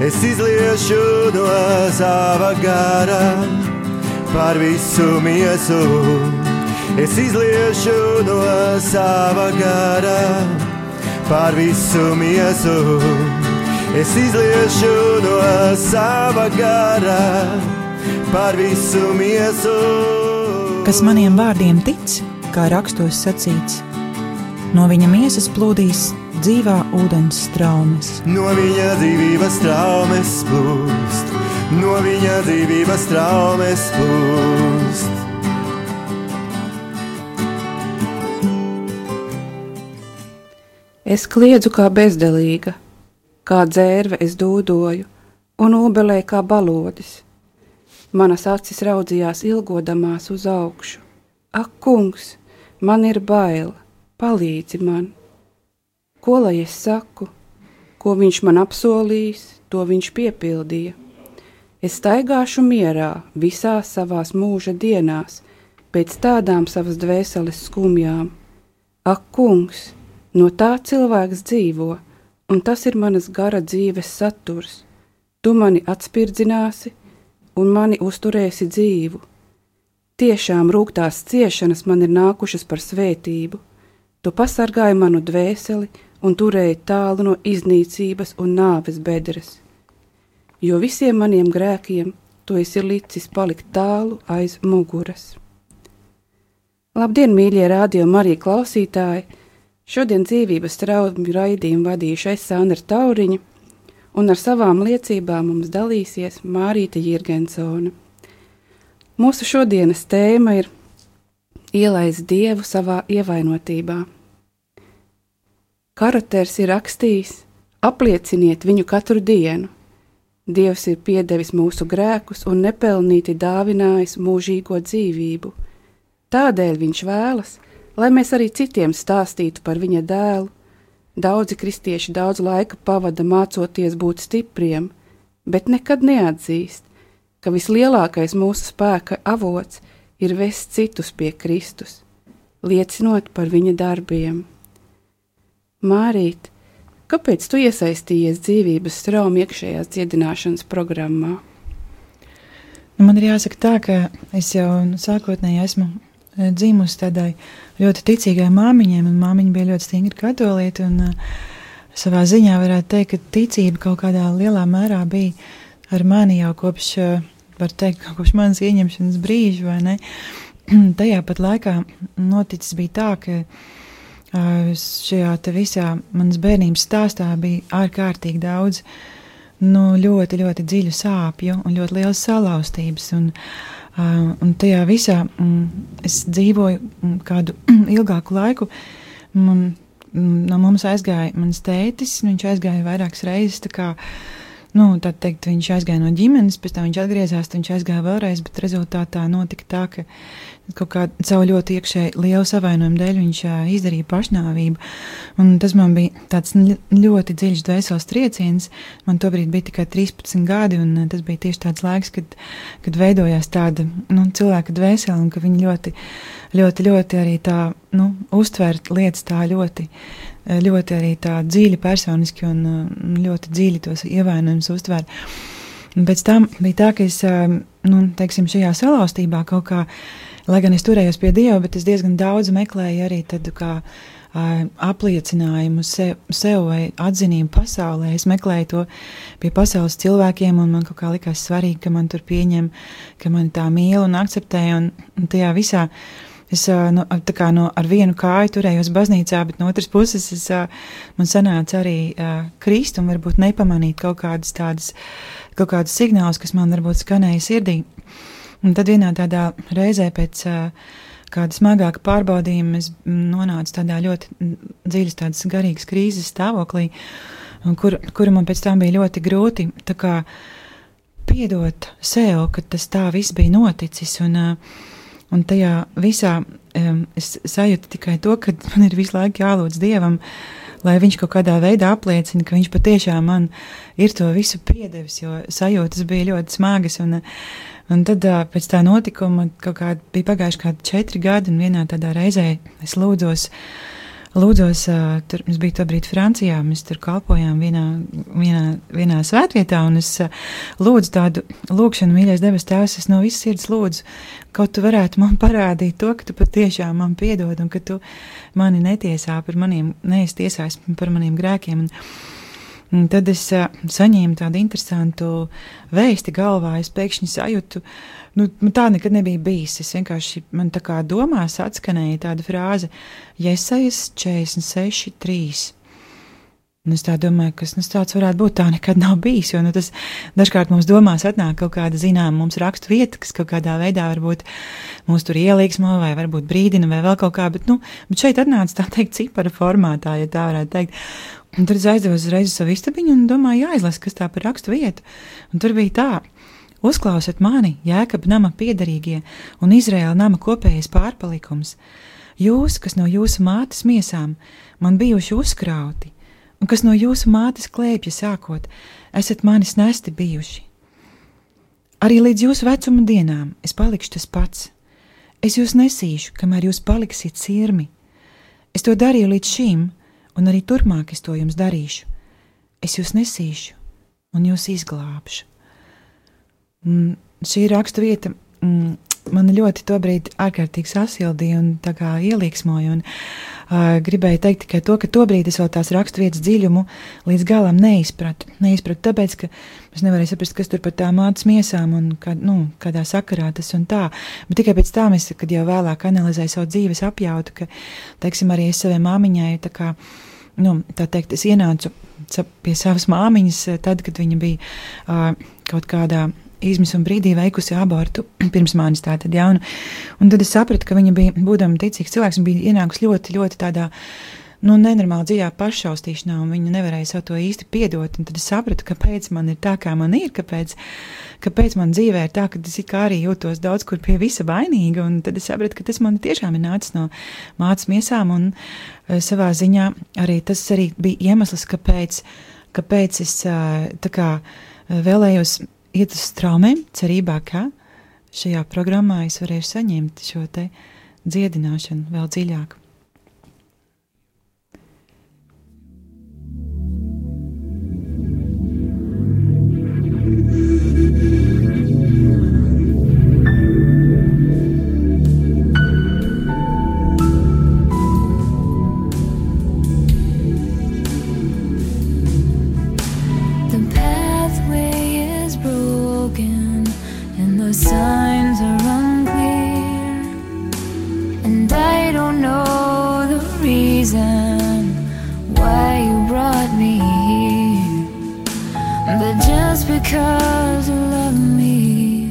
Es izliešu no sava gara par visu miesu. Es izliešu no sava gara par visu miesu. Es izliešu no sava gara par visu miesu. Kas maniem vārdiem tic, kā rakstos sacīts, no viņa miesas plūdīs dzīvā ūdens straumes. No viņa dzīvības straumes plūst, no viņa dzīvības straumes plūst. Es kliedzu kā bezdelīga, kā dzērve es dūdoju, un obelēju kā balodis. Manas acis raudzījās ilgodamās uz augšu. Ak, kungs, man ir bail, palīdzi man. Ko lai es saku? Ko viņš man apsolījis, to viņš piepildīja. Es staigāšu mierā visās savās mūža dienās, pēc tādām savas dvēseles skumjām. Ak, kungs, no tā cilvēks dzīvo, un tas ir manas gara dzīves saturs. Tu mani atspirdzināsi un mani uzturēsi dzīvu. Tiešām rūgtās ciešanas man ir nākušas par svētību. Tu pasargāji manu dvēseli un turēji tālu no iznīcības un nāves bedres. Jo visiem maniem grēkiem tu esi licis palikt tālu aiz muguras. Labdien, mīļie Radio Marija klausītāji! Šodien dzīvības traumju raidījumu vadīšu es, Sandra Tauriņa, un ar savām liecībām mums dalīsies Mārīte Jirgensone. Mūsu šodienas tēma ir ielaist Dievu savā ievainotībā. Karaters ir rakstījis: aplieciniet viņu katru dienu. Dievs ir piedevis mūsu grēkus un nepelnīti dāvinājis mūžīgo dzīvību. Tādēļ viņš vēlas, lai mēs arī citiem stāstītu par viņa dēlu. Daudzi kristieši daudz laika pavada mācoties būt stipriem, bet nekad neatzīst, ka vislielākais mūsu spēka avots ir vest citus pie Kristus, liecinot par viņa darbiem. Mārīt, kāpēc tu iesaistījies dzīvības traumu iekšējās dziedināšanas programmā? Man ir jāsaka tā, ka es jau sākotnēji esmu dzimusi tādai ļoti ticīgai māmiņai, un māmiņa bija ļoti stingri katoliete, un savā ziņā varētu teikt, ka ticība kaut kādā lielā mērā bija ar mani jau kopš, var teikt, kopš manas ieņemšanas brīža, vai ne? Tajā pat laikā noticis bija tā, ka šajā te visā manas bērnības stāstā bija ārkārtīgi daudz, ļoti, ļoti dziļu sāpju un ļoti lielas salauztības, un tajā visā es dzīvoju kādu ilgāku laiku. No mums aizgāja mans tētis, viņš aizgāja vairākas reizes, tā kā, tā teikt, viņš aizgāja no ģimenes, pēc tam viņš atgriezās, viņš aizgāja vēlreiz, bet rezultātā notika tā, ka kaut kā savu ļoti iekšēji lielu savainojumu dēļ viņš izdarīja pašnāvību, un tas man bija tāds ļoti dziļš dvēseles trieciens. Man tobrīd bija tikai 13 gadi, un tas bija tieši tāds laiks, kad veidojās tāda cilvēka dvēsele, un ka viņi ļoti arī tā uztvērt lietas tā ļoti arī tā dziļi personiski un ļoti dziļi tos ievainojumus uztvērt. Un pēc tam bija tā, ka es, teiksim, šajā salauztībā kaut kā, lai gan es turējos pie Dieva, bet es diezgan daudz meklēju arī tādu kā apliecinājumu sev vai atzinību pasaulē. Es meklēju to pie pasaules cilvēkiem, un man kaut kā likās svarīgi, ka man tur pieņem, ka mani tā mīl un akceptē, un tajā visā es ar vienu kāju turējos baznīcā, bet no otras puses man sanāca arī krist un varbūt nepamanīt kaut kādus signālus, kas man varbūt skanēja sirdī. Un tad vienā tādā reizē pēc kāda smagāka pārbaudījuma es nonācu tādā ļoti dziļas tādas garīgas krīzes stāvoklī, kura man pēc tam bija ļoti grūti tā kā piedot sev, ka tas tā viss bija noticis, un tajā visā es sajūtu tikai to, ka man ir visu laiku jālūdz Dievam, lai viņš kaut kādā veidā apliecina, ka viņš patiešām man ir to visu piedevis, jo sajūtas bija ļoti smagas, un tad pēc tā notikuma bija pagājuši kādi 4 gadi, un vienā tādā reizē es lūdzos lūdzos, tur mums bija tobrīd Francijā, mēs tur kalpojām vienā svētvietā, un es lūdzu tādu lūkšanu, mīļais debes Tēvs, es no visas sirds lūdzu, kaut tu varētu man parādīt to, ka tu patiešām man piedod, un ka tu mani netiesā par neesi tiesājis par maniem grēkiem, un tad es saņēmu tādu interesantu vēsti galvā, es pēkšņi sajūtu, tā nekad nebija bijis, es vienkārši, man tā kā domās atskanēja tāda frāze, Jesajas 46:3. Un es tā domāju, kas tāds varētu būt, tā nekad nav bijis, jo tas dažkārt mums domās atnāk kaut kāda mums rakstu vieta, kas kaut kādā veidā varbūt mūs tur ielīgsmo, vai varbūt brīdina, vai vēl kaut kā, bet šeit atnāca tā teikt cipara formātā, ja tā varētu teikt. Un tad es aizdevu uzreiz savu istabiņu un domāju, jāizlas, kas tā par rakstu vietu. Un tur bija tā, uzklausiet mani, Jēkaba nama piederīgie un Izraēla nama kopējais pārpalikums. Jūs, kas no jūsu mātes miesām man bijuši uzkrauti, un kas no jūsu mātes klēpja sākot, esat manis nesti bijuši. Arī līdz jūsu vecuma dienām es palikšu tas pats. Es jūs nesīšu, kamēr jūs paliksiet sirmi. Es to darīju līdz šim, un arī turpmāk es to jums darīšu. Es jūs nesīšu, un jūs izglābšu. Šī rakstu vieta man ļoti tobrīd ārkārtīgi sasildīja un tā kā ielīgsmoja, un gribēju teikt tikai to, ka tobrīd es vēl tās rakstu vietas dziļumu līdz galam neizpratu, tāpēc, ka es nevarēju saprast, kas tur par tā mātes miesām un kādā sakarā tas un tā, bet tikai pēc tam es, kad jau vēlāk analizēju savu dzīves apjautu, ka, teiksim, arī es savai māmiņai, tā teikt, es ienācu pie savas māmiņas tad, kad viņa bija kaut kādā izmisuma brīdī veikusi abortu pirms manis tātad, ja, un tad es sapratu, ka viņa bija, būdama ticīgs cilvēks, un bija ienākusi ļoti, ļoti tādā, nenormāli dziļā paššaustīšanā, un viņa nevarēja savu to īsti piedot, un tad es sapratu, kāpēc man ir tā, kā man ir, kāpēc man dzīvē ir tā, ka es kā arī jūtos daudz kur pie visa vainīga, un tad es sapratu, ka tas man tiešām ir nācis no mātes miesām, un savā ziņā arī tas arī bija iemesls, kāpēc es tā kā vēlējos iet uz straumēm, cerībā, ka šajā programmā es varēšu saņemt šo te dziedināšanu vēl dziļāk. Signs are unclear, and I don't know the reason why you brought me here, but just because you love me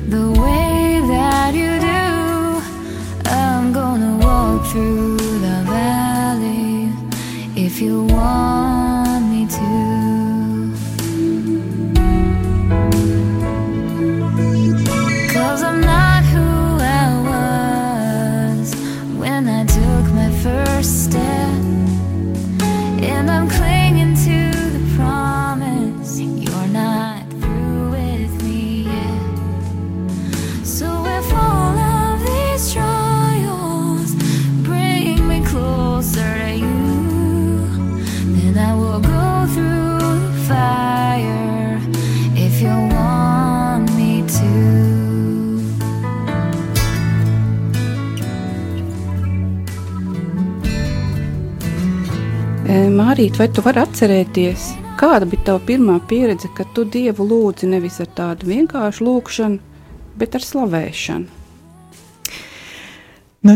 the way that you do, I'm gonna walk through the valley if you want me to. First step, and I'm clinging to the promise you're not through with me yet. So if all of these trials bring me closer to you, then I will go through the fire if you want me to. Mārīt, vai tu vari atcerēties, kāda bija tava pirmā pieredze, kad tu Dievu lūdzi nevis ar tādu vienkāršu lūkšanu, bet ar slavēšanu?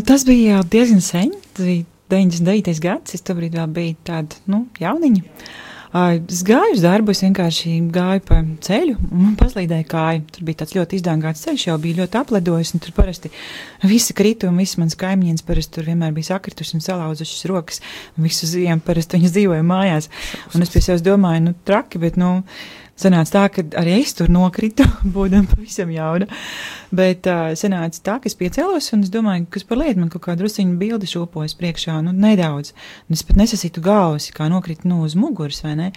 Tas bija jau diezgan sen, tas bija 99. gads, es tobrīd vēl biju tāda, jauniņa. Es gāju uz darbu, es vienkārši gāju pa ceļu, un man paslīdēja kāja. Tur bija tāds ļoti izdāngāts ceļš, jau bija ļoti aplidojis, un tur parasti visi krita, un visi mans kaimiņienes parasti tur vienmēr bija sakrituši un salauzušas rokas, un visu ziemu parasti viņas dzīvoja mājās. Un es pie sevis domāju, traki, bet, sanāca tā, ka arī es tur nokritu, būdam pavisam jauna, bet sanāca tā, ka es piecēlos, un es domāju, kas par lietu, man kaut kā drusciņu bildi šūpojas priekšā, nedaudz, un es pat nesasītu galvas, kā nokritu uz muguras, vai ne?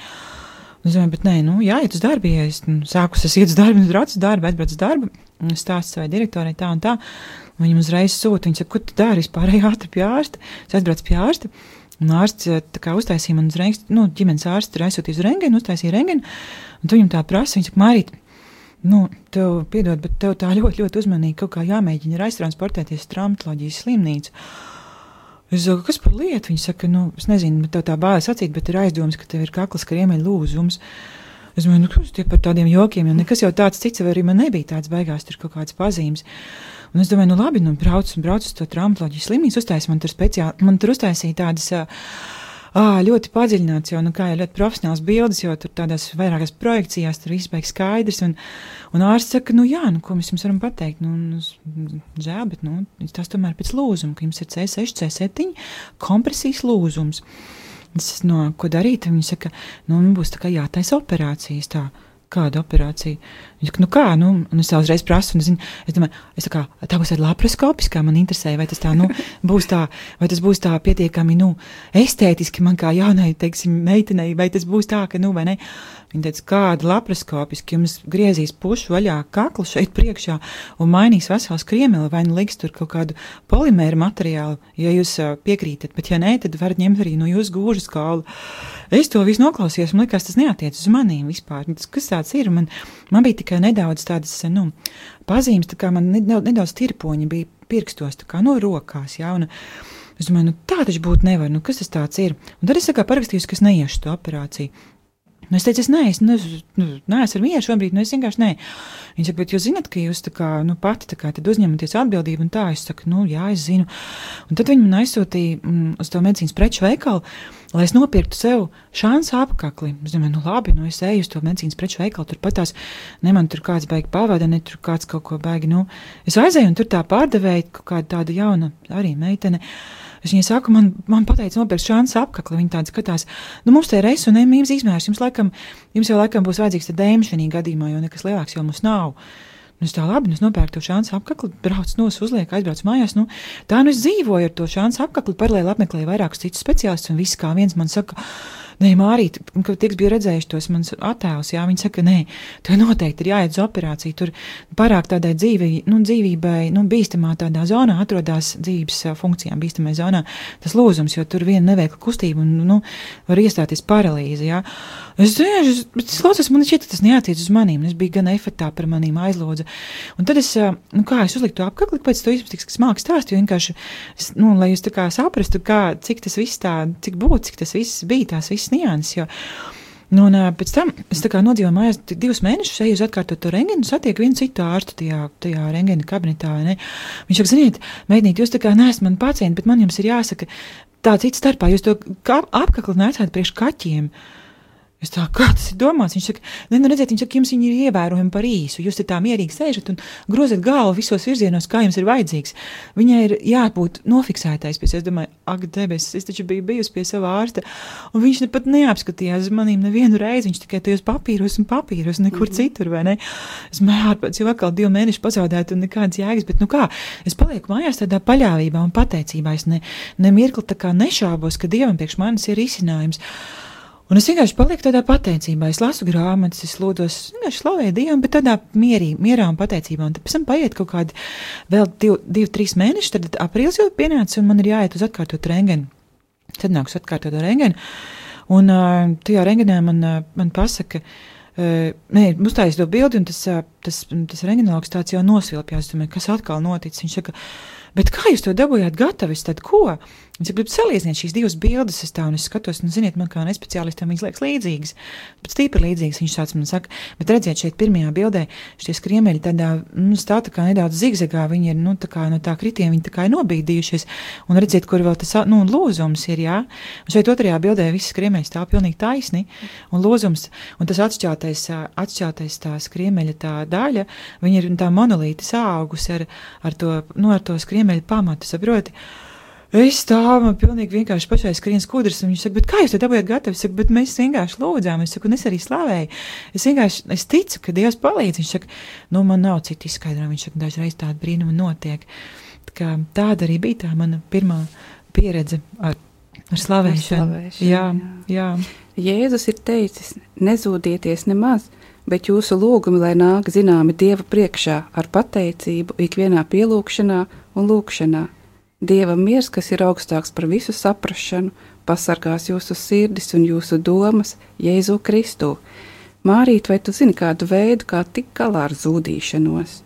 Es domāju, bet nē, jāiet uz darbu, ja es sāku, es iet uz darbu, es braucu uz darbu, aizbraucu uz darbu, stāstu savai direktorai tā un tā, un viņam uzreiz sūta, viņa saka, ko tu dari, vispār ātri pie ārsta, es aizbraucu pie ārsta, un ārsts tā kā uztaisīja man uzreiz, ģimenes ārsts tur aizsūtīja uz rengenu, uztaisīja rengenu, un tu viņam tā prasa, viņa saka, Mārīt, tev piedod, bet tev tā ļoti, ļoti uzmanīgi kaut kā jāmēģina ir aiztransportēties traumatoloģijas slimnīcu. Es saku, kas par lietu? Viņa saka, es nezinu, bet tev tā bājas acīt, bet ir aizdomas, ka tev ir kaklas kriemeļa lūzums. Es domāju, kas tie par tādiem jokiem, jo nekas jau tāds cits arī man nebija tāds beigās, tur kaut kāds pazīmes. Un es domāju, labi, brauc uz to traumatoloģijas slimnīcu, uztaisīja man tur uztaisīja tādas ļoti padziļināts jau, kā jau ļoti profesionāls bildes, jo tur tādās vairākās projekcijās tur viss beigas skaidrs, un ārsts saka, ko mēs jums varam pateikt, žēl, bet, tas tomēr pēc lūzuma, ka jums ir C6, C7 kompresijas lūzums. Es, ko darīt? Viņi saka, būs tā kā jātaisa operācijas tā. Kāda operācija? Viņa saka, kā? Un es tā uzreiz prasu, un es domāju, tā būs tāda laparoskopiskā, man interesēja, vai tas tā, būs tā, vai tas būs tā pietiekami, estētiski man kā jaunai, teiksim, meitenei, vai tas būs tā, ka, vai ne? Viņa teica, kāda laparoskopiski, jums griezīs pušu vaļā kaklu šeit priekšā un mainīs vesels kriemeli, vai liks tur kaut kādu polimēru materiālu, ja jūs piekrītat, bet ja nē, tad varat ņemt arī no jūsu gūžas kaulu. Es to visu noklausījos, man likās, tas neatiec uz manīm vispār. Kas tāds ir? Man bija tikai nedaudz tādas, pazīmes, tā kā man nedaudz tirpoņi bija pirkstos, tā kā rokās, jā, un es domāju, tā taču būt nevar, kas tas tāds ir? Un tad es parakstījos, ka es neiešu to operāciju. Es teicu, es neesmu ar mieru šobrīd, es vienkārši nē. Viņa saka, bet jūs zināt, ka jūs tā kā, pati tā kā tad uzņematies atbildību, un tā, es saku, jā, es zinu. Un tad viņi man aizsūtīja uz to medicīnas preču veikalu, lai es nopirktu sev šansu apakli. Es domāju, labi, es eju uz to medicīnas preču veikalu, tur patās, man tur kāds baigi pavada, ne tur kāds kaut ko baigi, Es aizēju, un tur tā pārdevēja kaut kāda tāda jauna arī meitene. Es viņai saku, man pateica nopirkt šansu apakli, viņa tāda skatās, mums te ir S un M izmērs, jums jau laikam būs vajadzīgs te dēma šajā gadījumā, jo nekas lielāks jau mums nav. Es tā labi, es nopērku to šansu apakli, braucu uzlieku, aizbraucu mājās, es dzīvoju ar to šansu apakli, paralēli apmeklēju vairākus citus speciālistus, un viss kā viens man saka, nē, Mārīt, kad tiks bija redzējuši tos mans attēlus, jā, viņi saka, nē, tev noteikti ir jāiet uz operāciju, tur pārāk tādai dzīvībai, bīstamā tādā zonā atrodās dzīves funkcijām, bīstamai zonā tas lūzums, jo tur viena neveikla kustība un, var iestāties paralīze, jā. Es klausos, man šķiet, ka tas neatiec uz manīm, es biju gan efektā par manīm aizlūdza. Un tad es uzliku to apkakli, pēc to izpatiks, kas māks stāst, jo vienkārši, lai jūs tā kā saprastu, cik tas viss cik būtu, cik tas viss bija, tās viss nianses, jo. Un pēc tam es tā kā nodzīvoju mājās 2 mēnešus, eju uz atkārtot to rengenu, satieku vienu citu ārstu tajā rengena kabinetā, ne? Viņš saka, ziniet, meitnīt, jūs tā kā neesat mani pacienti, bet man jums ir jāsaka tā cits starpā, jūs to apkakli neatsāt priekš kaķiem. Es tā, kā tas ir domāts? Viņš saka, redziet, jums viņi ir ievērojami par īsu. Jūs te tā mierīgi sēžat un grozat galvu visos virzienos, kā jums ir vajadzīgs. Viņai ir jābūt nofiksētais. Es domāju, ak, debesis, es taču biju bijusi pie sava ārsta, un viņš pat neapskatījās manīm nevienu reizi. Viņš tikai tajos papīros, nekur citur, vai ne? Es ārpēc jau atkal 2 mēneši pazaudētu un nekādas jēgas, bet es palieku mājās tādā paļāvībā un pateicībā. Es nemirkli tā kā nešābos, ka Dievam priekš manis ir risinājums. Un es vienkārši palieku tādā pateicībā, es lasu grāmatas, es lūdos, vienkārši slavēju Dievu, bet tādā mierā un pateicībā. Un tad pēc tam paiet kaut kādi vēl 2-3 mēneši, tad aprīlis jau pienāca un man ir jāiet uz atkārtot rengenu. Tad nāks atkārtot rengenu. Un tajā rengenā man pasaka, uztājas to bildi un tas rengenologs tāds jau nosvilpjās. Es domāju, kas atkal noticis? Viņš saka, bet kā jūs to dabūjāt gatavis, tad ko? Viņš grib salīdzināt šīs 2 bildes, un es skatos, ziniet, man kā nespeciālistam viņas liekas līdzīgas, bet stīpri līdzīgas, viņš tāds man saka, bet redziet, šeit pirmajā bildē šie skriemeļi tādā, stāv tā kā nedaudz zigzagā, viņi ir, tā kā no tā kritiem, viņi tā kā ir nobīdījušies, un redziet, kur vēl tas, lūzums ir, jā, un šeit otrajā bildē visi skriemeļi stāv pilnīgi taisni, un lūzums, un tas atšķeltais tā skriemeļa tā daļa, viņi ir tā monolīti sāugus ar to skriemeļa pamatu, saproti. Es stāvu, man pilnīgi vienkārši pašai skrien skudras, un viņš saka, bet kā jūs to dabūjāt gatavi? Es saku, bet mēs vienkārši lūdzām, es saku, un es arī slavēju. Es ticu, ka Dievs palīdz. Viņš saka, man nav citu izskaidrojumu, viņš saka, dažreiz tāda brīnuma notiek. Tāda arī bija tā mana pirmā pieredze ar Ar slavēšanu. Jā. Jēzus ir teicis, nezūdieties nemaz, bet jūsu lūgumi, lai nāk zināmi Dieva priekšā ar pateicību ikvienā pielūgšanā un lūgšanā. Dieva miers, kas ir augstāks par visu saprašanu, pasargās jūsu sirdis un jūsu domas Jēzu Kristu. Mārīt, vai tu zini kādu veidu, kā tikt galā ar zūdīšanos?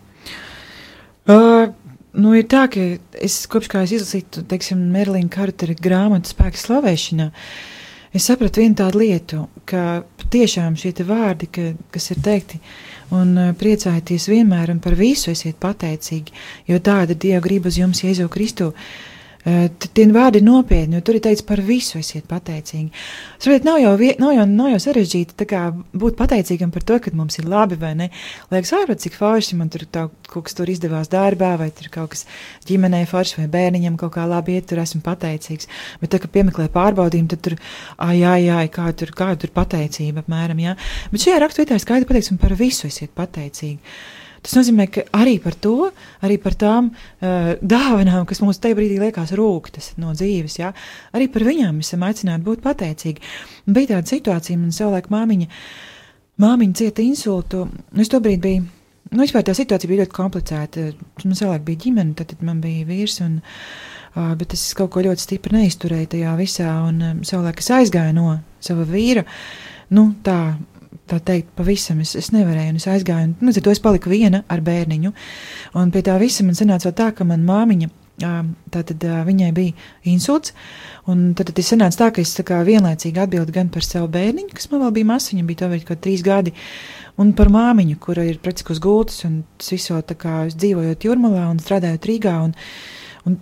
Ir tā, ka es kopš kā es izlasītu, teiksim, Merlīna Kartera grāmatu Spēks slavēšanā, es sapratu vienu tādu lietu, ka tiešām šie te vārdi, kas ir teikti, un priecājieties vienmēr un par visu esiet pateicīgi, jo tāda Dieva grib uz jums Jēzu Kristu. Tie vārdi ir nopietni, jo tur ir teikts par visu esiet pateicīgi. Saprāt, nav jau sarežģīti tā kā būt pateicīgam par to, ka mums ir labi vai ne. Liekas, ārprāt, cik forši man tur kaut kas tur izdevās darbā, vai tur kaut kas ģimenē forši, vai bērniņam kaut kā labi iet, tur esmu pateicīgs. Bet tā, ka piemeklē pārbaudījumu, tad tur, kā tur pateicība apmēram, jā. Bet šajā raksturvietā ir skaidri pateikts, un par visu esiet pateicīgi. Tas nozīmē, ka arī par to, arī par tām dāvanām, kas mums tajā brīdī liekas rūktas no dzīves, jā, arī par viņām mēs esam aicināti būt pateicīgi. Un bija tāda situācija, man savulaik māmiņa cieta insultu, es tobrīd biju, vispār tā situācija bija ļoti komplicēta, man savulaik bija ģimene, tad man bija vīrs, bet es kaut ko ļoti stipri neizturēju tajā visā, un savulaik es aizgāju no sava vīra, tā teikt, pavisam es nevarēju, un es aizgāju, un tad es paliku viena ar bērniņu, un pie tā visa man sanāca vēl tā, ka man māmiņa, tātad viņai bija insults, un tad es sanāca tā, ka es tā kā vienlaicīgi atbildu gan par savu bērniņu, kas man vēl bija masa, viņam bija tobrīd kaut 3 gadi, un par māmiņu, kura ir praktiski uz gultas, un tas viso tā kā dzīvojot Jūrmalā un strādājot Rīgā, un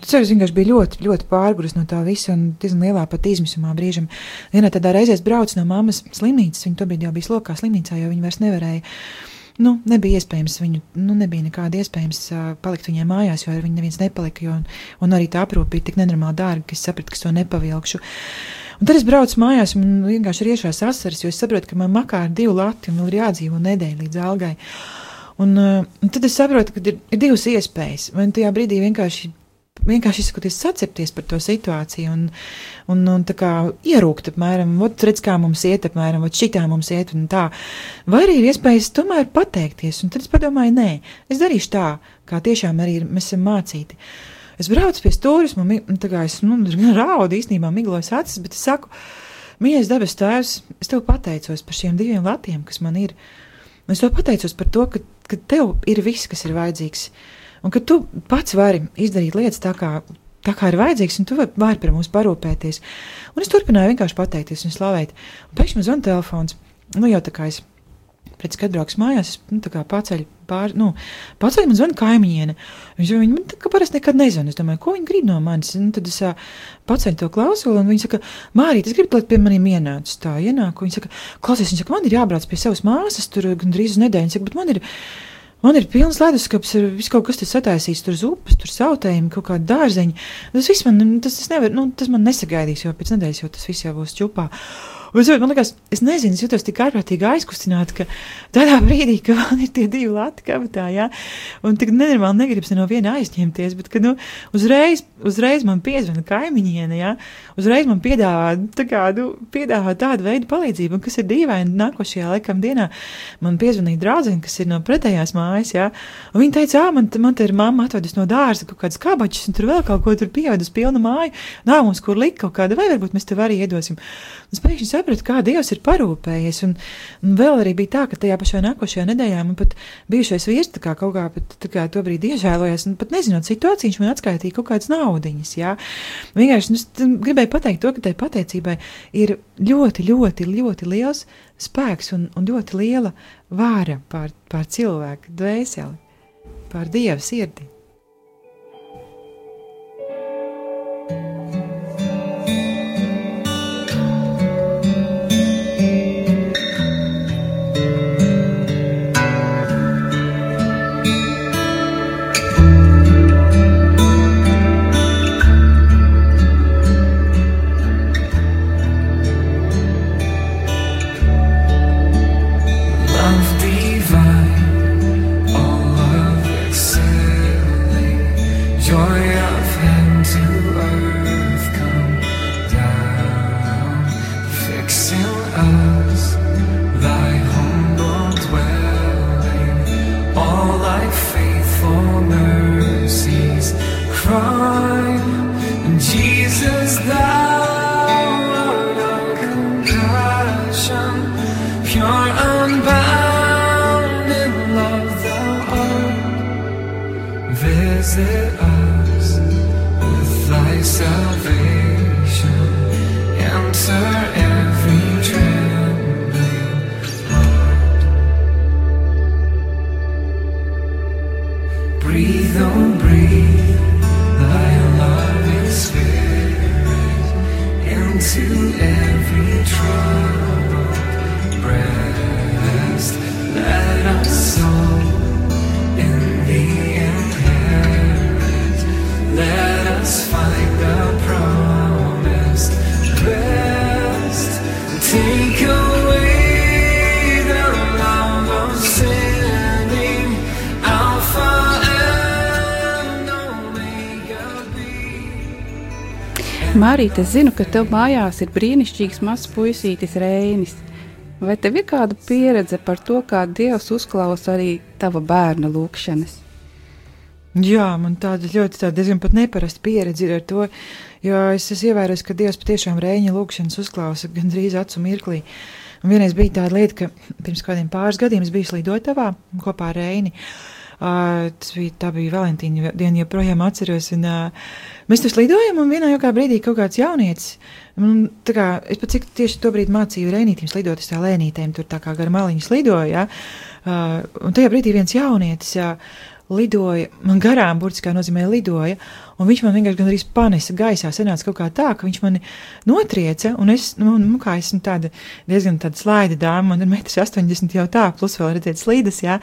es vienkārši biju ļoti, ļoti pārguris no tā visa un diezgan lielā pat izmisumā brīžam. Vienā tādā reizē es braucu no mammas slimnīcas, viņa tobrīd jau bija slokā slimnīcā, jo viņa vairs nevarēja, nebija iespējams viņu, nebija nekāda iespējams palikt viņai mājās, jo ar viņu neviens nepalika, un arī tā aprūpe bija tik nenormāli dārga, ka es sapratu, ka es to nepavilkšu. Un tad es braucu mājās un vienkārši ir iešās asaras, jo es saprotu, ka man makā ir 2 lati un vēl ir jādzīvo nedēļu līdz algai. Un tad es saprotu, ka ir 2 iespējas, vai tajā brīdī vienkārši izsakoties sacepties par to situāciju un tā kā ierūkt apmēram, redz, kā mums iet apmēram, šitā mums iet un tā. Vai arī ir iespējas tomēr pateikties, un tad es padomāju, nē, es darīšu tā, kā tiešām arī mēs esam mācīti. Es braucu pie stūres, tā kā es raudu īstenībā miglojas acis, bet es saku, mīļais debes tēvs, es tev pateicos par šiem 2 latiem, kas man ir. Es tev pateicos par to, ka tev ir viss, kas ir vajadzīgs. Un ka tu pats vari izdarīt lietas tā kā ir vajadzīgs, un tu vari par mums parūpēties. Un es turpināju vienkārši pateikties un slavēt. Un pēkšņi man zvana telefons. Jau tā kā es pēc kad brauks mājās, es tā kā paceļu man zvana kaimiņiene. Viņa man tā kā parasti nekad nezvana. Es domāju, ko viņa grib no manis? Tad es paceļu to klausuli, un viņa saka, Mārīt, es gribu, lai pie maniem ienāc. Tā ienāk, un viņa saka, klausies, man ir jābrauc pie savas māsas, tur gandrīz uz nedēļu. Viņa saka, bet man ir pilns leduskapis, ir viss kaut kas tas sataisīts, tur zupas, tur sautējumi, kaut kādi dārzeņi. Tas viss tas man nesagaidīs, jo pēc nedēļas jau tas viss jau būs čupā. Un man liekas, es nezinu, es jūtos tik ārprātīgi aizkustināti, ka tādā brīdī, ka man ir tie 2 lati kabatā, jā, un tik nenormāli negribas no viena aizņemties, bet, ka, uzreiz man piezvana kaimiņiene, jā, uzreiz man piedāvā tādu veidu palīdzību, un kas ir dīvaini nākošajā laikam dienā, man piezvanīja draudzene, kas ir no pretējās mājas, jā, un viņa teica, man te ir mamma atvedus no dārza kaut kādas kabačas, un tur vēl kaut ko tur pievedus pilnu māju, nav mums kur likt kaut kāda, vai varbūt mēs tev arī iedosim. Un es pēkšņi sapratu, kā Dievs ir parūpējies, un vēl arī bija tā, ka tajā pašā nākošajā nedēļā man pat bijušais vīrs tā kā kaut kā pat tā kā to brīdi iežēlojās, un pat nezinot situāciju, viņš man atskaitīja kaut kādas naudiņas, jā. Vienkārši, gribēju pateikt to, ka tai pateicībai ir ļoti, ļoti, ļoti liels spēks un ļoti liela vāra pār cilvēku dvēseli, pār Dieva sirdi. Love divine, all of excel. us thy humble dwelling, all like faithful mercies cry. Jesus, thou art of compassion, pure unbounded love thou art. Visit us with thy salvation, enter every trembling heart. Breathe, oh breathe, thy loving spirit into every troubled breast. Let us soul in thee inherit, let us find the promised rest. Take away the love of sinning, Alpha and Omega be. Mārīt, es zinu, ka tev mājās ir brīnišķīgs mazs puisītis Reinis. Vai tev ir kāda pieredze par to, kā Dievs uzklausa arī tava bērna lūkšanas? Jā, man tāda diezgan pat neparasta pieredze ir ar to, jo es ievēroju, ka Dievs patiešām Reiņa lūkšanas uzklausa gandrīz acu mirklī. Un vienreiz bija tāda lieta, ka pirms kādiem pāris gadiem es biju slidotavā kopā ar Reini. Tā bija Valentīna diena, joprojām atceros, un mēs tur slidojam, un vienā jaukā brīdī kaut kāds jaunietis, es pat cik tieši to brīdi mācīju Reinītim slidot, es tā lēnītēm tur tā kā gar maliņu slidoju, ja? Un tajā brīdī viens jaunietis lidoja, man garām burtiskā nozīmē lidoja, un viņš man vienkārši gandrīz panesa gaisā, sanāca kaut kā tā, ka viņš mani notrieca, un es, kā esmu tāda diezgan tāda slaida dāma, man ir 1,80 m jau tā, plus vēl redzēt slīdas, jā,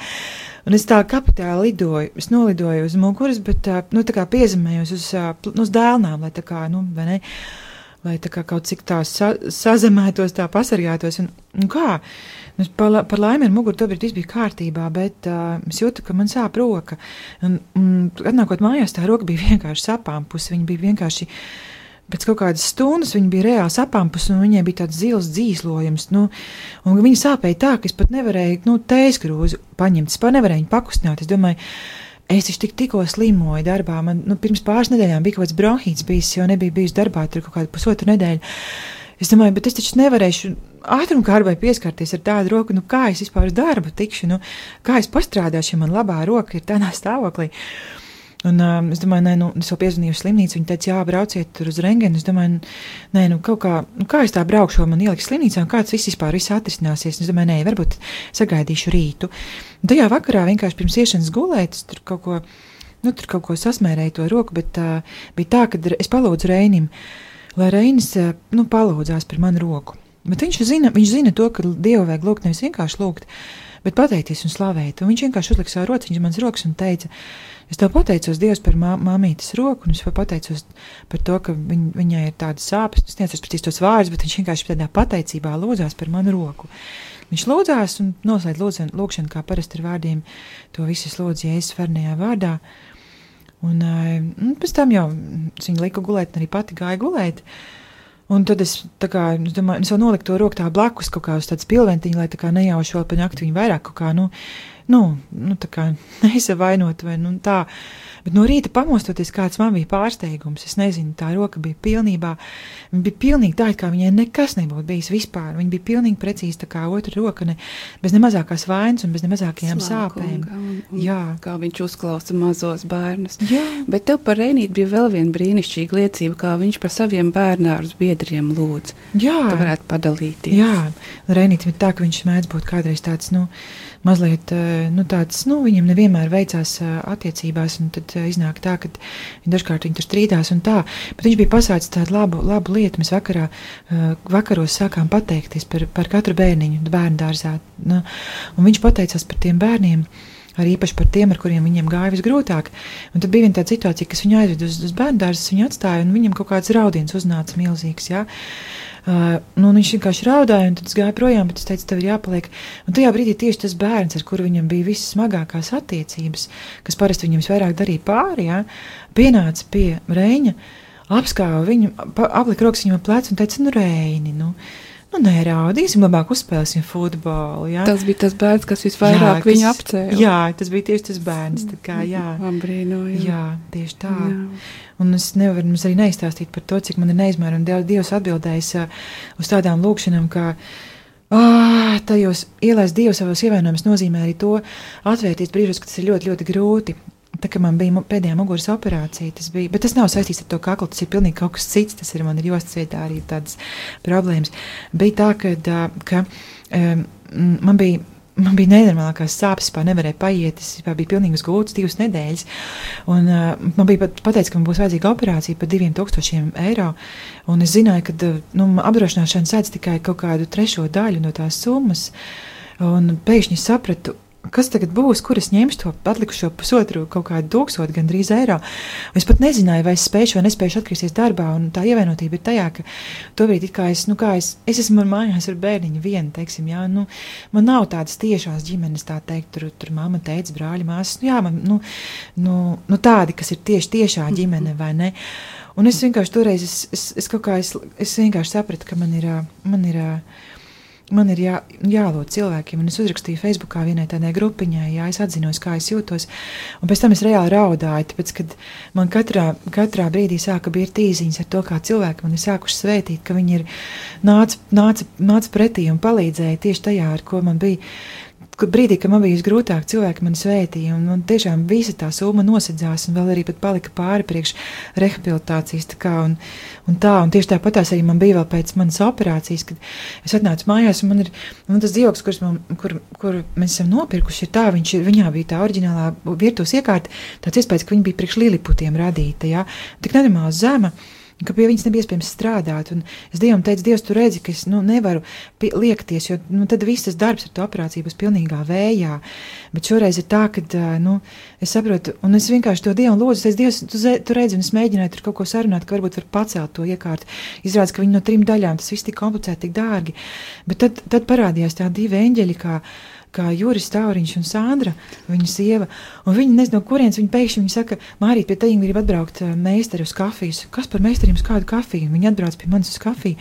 un es tā kapitāli lidoju, es nolidoju uz muguras, bet tā kā piezemējos uz dēlnām, lai tā kā, vai ne, lai tā kā kaut cik tā sazemētos, tā pasargātos, un kā? Par laimi ar muguru tobrīd viss bija kārtībā, bet es jūtu, ka man sāp roka. Un atnākot mājās, tā roka bija vienkārši sapāmpusi. Viņa bija vienkārši, pēc kaut kādas stundas, viņa bija reāli sapāmpusi, un viņai bija tāds zils dzīslojums. Un viņa sāpēja tā, ka es pat nevarēju, tēskrūzi paņemt, es pat nevarēju viņu pakustināt. Es domāju, es taču tikko slimoju darbā. Man pirms pāris nedēļām bija kaut kāds bronhīts bijis, jo nebija bijis darbā tur kaut kādu pusotru nedēļu. Es domāju, bet es taču nevarēšu ātrumkārbai pieskarties ar tādu roku, kā es vispār uz darbu tikšu, kā es pastrādāšu, ja man labā roka ir tādā stāvoklī. Un es domāju, es vēl piezvanīju uz slimnīcu, viņi teica, jā, brauciet tur uz rengeni. Es domāju, kaut kā es tā braukšu, man ieliks slimnīcā, un kāds viss atrisināsies. Es domāju, varbūt sagaidīšu rītu. Un tajā vakarā vienkārši pirms iešanas gulēt, tur kaut ko sasmērēju to roku, bet bija tā, ka es palūdzu Reinim, lai Reinis palūdzās par manu roku. Bet viņš zina to, ka Dievu vajag lūgt, nevis vienkārši lūgt, bet pateikties un slavēt. Un viņš vienkārši uzlika savu rociņu mans rokas un teica, es tev pateicos Dievs par māmītes roku, un es pateicos par to, ka viņai ir tādas sāpes. Es neatceros precīzi tos vārdus, bet viņš vienkārši tādā pateicībā lūdzās par manu roku. Viņš lūdzās un noslēdz lūgšanu, kā parasti ar vārdiem, to visu lūdzu Jēzus svarnajā vārdā. Un pēc tam jau es viņu liku gulēt, un arī pati gāju gulēt. Un tad es domāju, es vēl noliku to roku tā blakus kaut kā uz tādas pilventiņa, lai tā kā nejaušu vēl pa nakti viņu vairāk kaut kā, tā kā neizavainot vai tā. Bet no rīta pamostoties, kāds man bija pārsteigums, es nezinu, tā roka bija pilnīgi tā, kā viņai nekas nebūtu bijis vispār. Viņa bija pilnīgi precīzi tā kā otra roka, bez ne mazākās vainas un bez ne mazākajām sāpēm. Jā. Kā viņš uzklausa mazos bērnus. Jā. Bet tev par Reinīti bija vēl viena brīnišķīga liecība, kā viņš par saviem bērnārus biedriem lūdz. Jā. Tu varētu padalīties. Jā, Reinīti ir tā, ka viņš mēdz būt kādreiz tāds, mazliet, viņam nevienmēr veicās attiecībās, un tad iznāk tā, ka dažkārt viņi tur strīdās un tā, bet viņš bija pasācis tādu labu lietu. Mēs vakaros sākām pateikties par katru bērniņu bērnu dārzā, un viņš pateicās par tiem bērniem, arī īpaši par tiem, ar kuriem viņiem gāja visgrūtāk. Un tad bija viena tāda situācija, kas viņu aizved uz bērnu dārzas, viņu atstāja, un viņam kaut kāds raudiens uznāca milzīgs, jā. Viņš vienkārši raudāja, un tad es gāju projām, bet es teicu, tev ir jāpaliek. Un tajā brīdī tieši tas bērns, ar kuru viņam bija visas smagākās attiecības, kas parasti viņam visvairāk darīja pāri, jā, pienāca pie Reiņa, apskāva viņu, aplika rokas viņam ap plecu un teica, Reini, nu, neraudīsim, labāk uzspēlēsim futbolu. Ja? Tas bija tas bērns, kas visvairāk viņu apcēla. Jā, tas bija tieši tas bērns. Tā kā, jā. Brīnoju. Jā, tieši tā. Jā. Un es nevaru mums arī neizstāstīt par to, cik man ir neizmērami Dievs atbildējis uz tādām lūkšanām, kā tajos ielaist Dievu savos ievainojumus nozīmē arī to atvērties brīžos, ka tas ir ļoti, ļoti grūti. Tā kā man bija pēdējā muguras operācija, tas bija, bet tas nav saistīts ar to kaklu, tas ir pilnīgi kaut kas cits, tas ir man ir jostas vietā arī tādas problēmas. Bija tā, ka man bija nenormālākās sāpes, nevarēja paiet, es biju pilnīgi uz gultas 2 nedēļas, un man bija pateicis, ka man būs vajadzīga operācija par 2000 eiro, un es zināju, ka apdrošināšana sēdz tikai kaut kādu 3. daļu no tās summas, un pēkšņi sapratu, kas tagad būs, kur es ņemšu to atlikušo pusotru kaut kādu 1000 gandrīz eiro. Un es pat nezināju, vai es spēšu vai nespēšu atgriezties darbā, un tā ievainotība ir tajā, ka tobrīd it kā es esmu mājās ar bērniņu vienu, teiksim, jā, man nav tādas tiešās ģimenes, tā teikt, tur mamma, teica, brāļi, māsas, jā, man, tādi, kas ir tiešā ģimene, vai ne? Un es vienkārši toreiz, es vienkārši sapratu, ka man ir jālūdz cilvēkiem, un es uzrakstīju Facebookā vienai tādai grupiņai, jā, es atzinos, kā es jūtos, un pēc tam es reāli raudāju, tāpēc, kad man katrā brīdī sāka birt īziņas ar to, kā cilvēki man ir sākuši svētīt, ka viņi ir nāca pretī un palīdzēja tieši tajā, ar ko man bija, brīdī, kad man bija visgrūtāk, cilvēki mani svētīja, un tiešām visa tā summa nosedzās, un vēl arī pat palika pāri priekš rehabilitācijas, un tieši tāpatās arī man bija vēl pēc manas operācijas, kad es atnācu mājās, un man tas dzīvoklis, kur mēs esam nopirkuši, ir tā, viņā bija tā oriģinālā virtuves iekārta, tāds iespējas, ka viņa bija priekš liliputiem radīta, jā, tik nenormāli zema, ka pie viņas nebija iespējams strādāt, un es Dievam teicu, Dievs, tu redzi, ka es nevaru liekties, jo tad viss tas darbs ar to operāciju būs pilnīgā vējā, bet šoreiz ir tā, ka, es saprotu, un es vienkārši to Dievam lūdzu, es Dievs, tu redzi, un es mēģināju tur kaut ko sarunāt, ka varbūt var pacelt to iekārtu, izrādās, ka viņi no 3 daļām, tas viss tik komplicēti, tik dārgi, bet tad parādījās tā 2 eņģeļi, kā Juris Tauriņš un Sandra, viņa sieva, un viņi nezinu, no kurienes viņi pēkšņi saka, Mārīt, pie teņiem grib atbraukt meistari uz kafijas. Kas par meistariem uz kādu kafiju? Viņi atbrauc pie manis uz kafiju,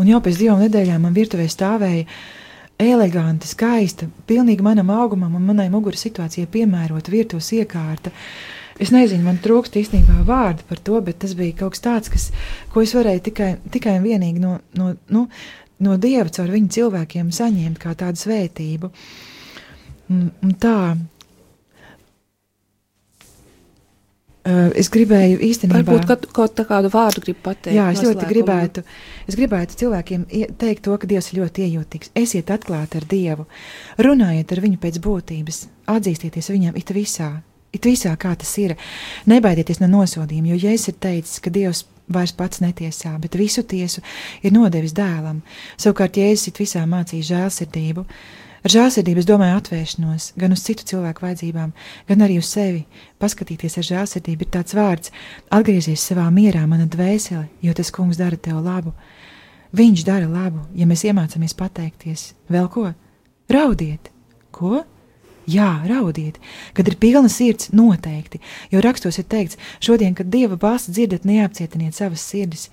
un jau pēc 2 nedēļām man virtuvē stāvēja eleganta, skaista, pilnīgi manam augumam un manai muguras situācijai piemērota virtuves iekārta. Es nezinu, man trūkst īstenībā vārdu par to, bet tas bija kaut kas tāds, ko es varēju tikai un vienīgi no Dieva caur viņu cilvēkiem saņemt kā tādu svētību. Un tā. Es gribēju īstenībā... Varbūt kādu vārdu gribu pateikt. Jā, es gribētu cilvēkiem teikt to, ka Dievs ir ļoti iejūtīgs. Esiet atklāti ar Dievu, runājiet ar viņu pēc būtības, atzīstieties viņam it visā, kā tas ir. Nebaidieties no nosodījuma, jo Jēzus ir teicis, ka Dievs vairs pats netiesā, bet visu tiesu ir nodevis dēlam. Savukārt Jēzus it visā mācīja žēlsirdību. Ar žēlsirdību es domāju atvēršanos, gan uz citu cilvēku vajadzībām, gan arī uz sevi. Paskatīties ar žēlsirdību ir tāds vārds: atgriezies savā mierā, mana dvēsele, jo tas kungs dara tev labu. Viņš dara labu, ja mēs iemācāmies pateikties. Vēl ko? Raudiet! Ko? Jā, raudiet, kad ir pilna sirds, noteikti, jo rakstos ir teikts, šodien, kad Dieva balsi dzirdat, neapcietiniet savas sirdis,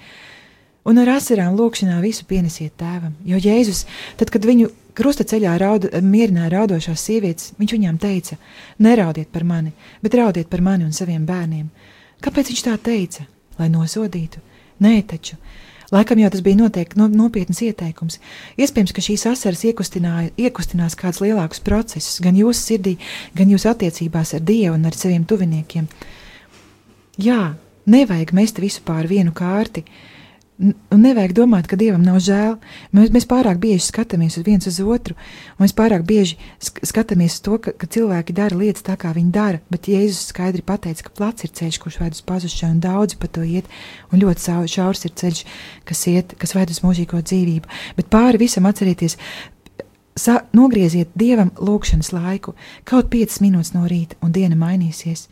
un ar asarām lūkšanā visu pienesiet tēvam, jo Jēzus, tad, kad viņu krusta ceļā mierināja raudošās sievietes, viņš viņām teica, neraudiet par mani, bet raudiet par mani un saviem bērniem. Kāpēc viņš tā teica? Lai nosodītu? Nē, taču. Laikam jau tas bija noteikti nopietnas ieteikums. Iespējams, ka šīs asaras iekustinās kādus lielākus procesus, gan jūsu sirdī, gan jūsu attiecībās ar Dievu un ar saviem tuviniekiem. Jā, nevajag mest visu pār vienu kārti, un nevajag domāt, ka Dievam nav žēl. Mēs pārāk bieži skatāmies viens uz otru, un mēs pārāk bieži skatāmies to, ka cilvēki dara lietas tā, kā viņi dara, bet Jēzus skaidri pateica, ka plats ir ceļš, kurš ved uz pazušanu, un daudzi pa to iet, un ļoti šaurs ir ceļš, kas ved uz mūžīgo dzīvību. Bet pāri visam atcerieties, nogrieziet Dievam lūkšanas laiku, kaut 5 minūtes no rīta, un diena mainīsies.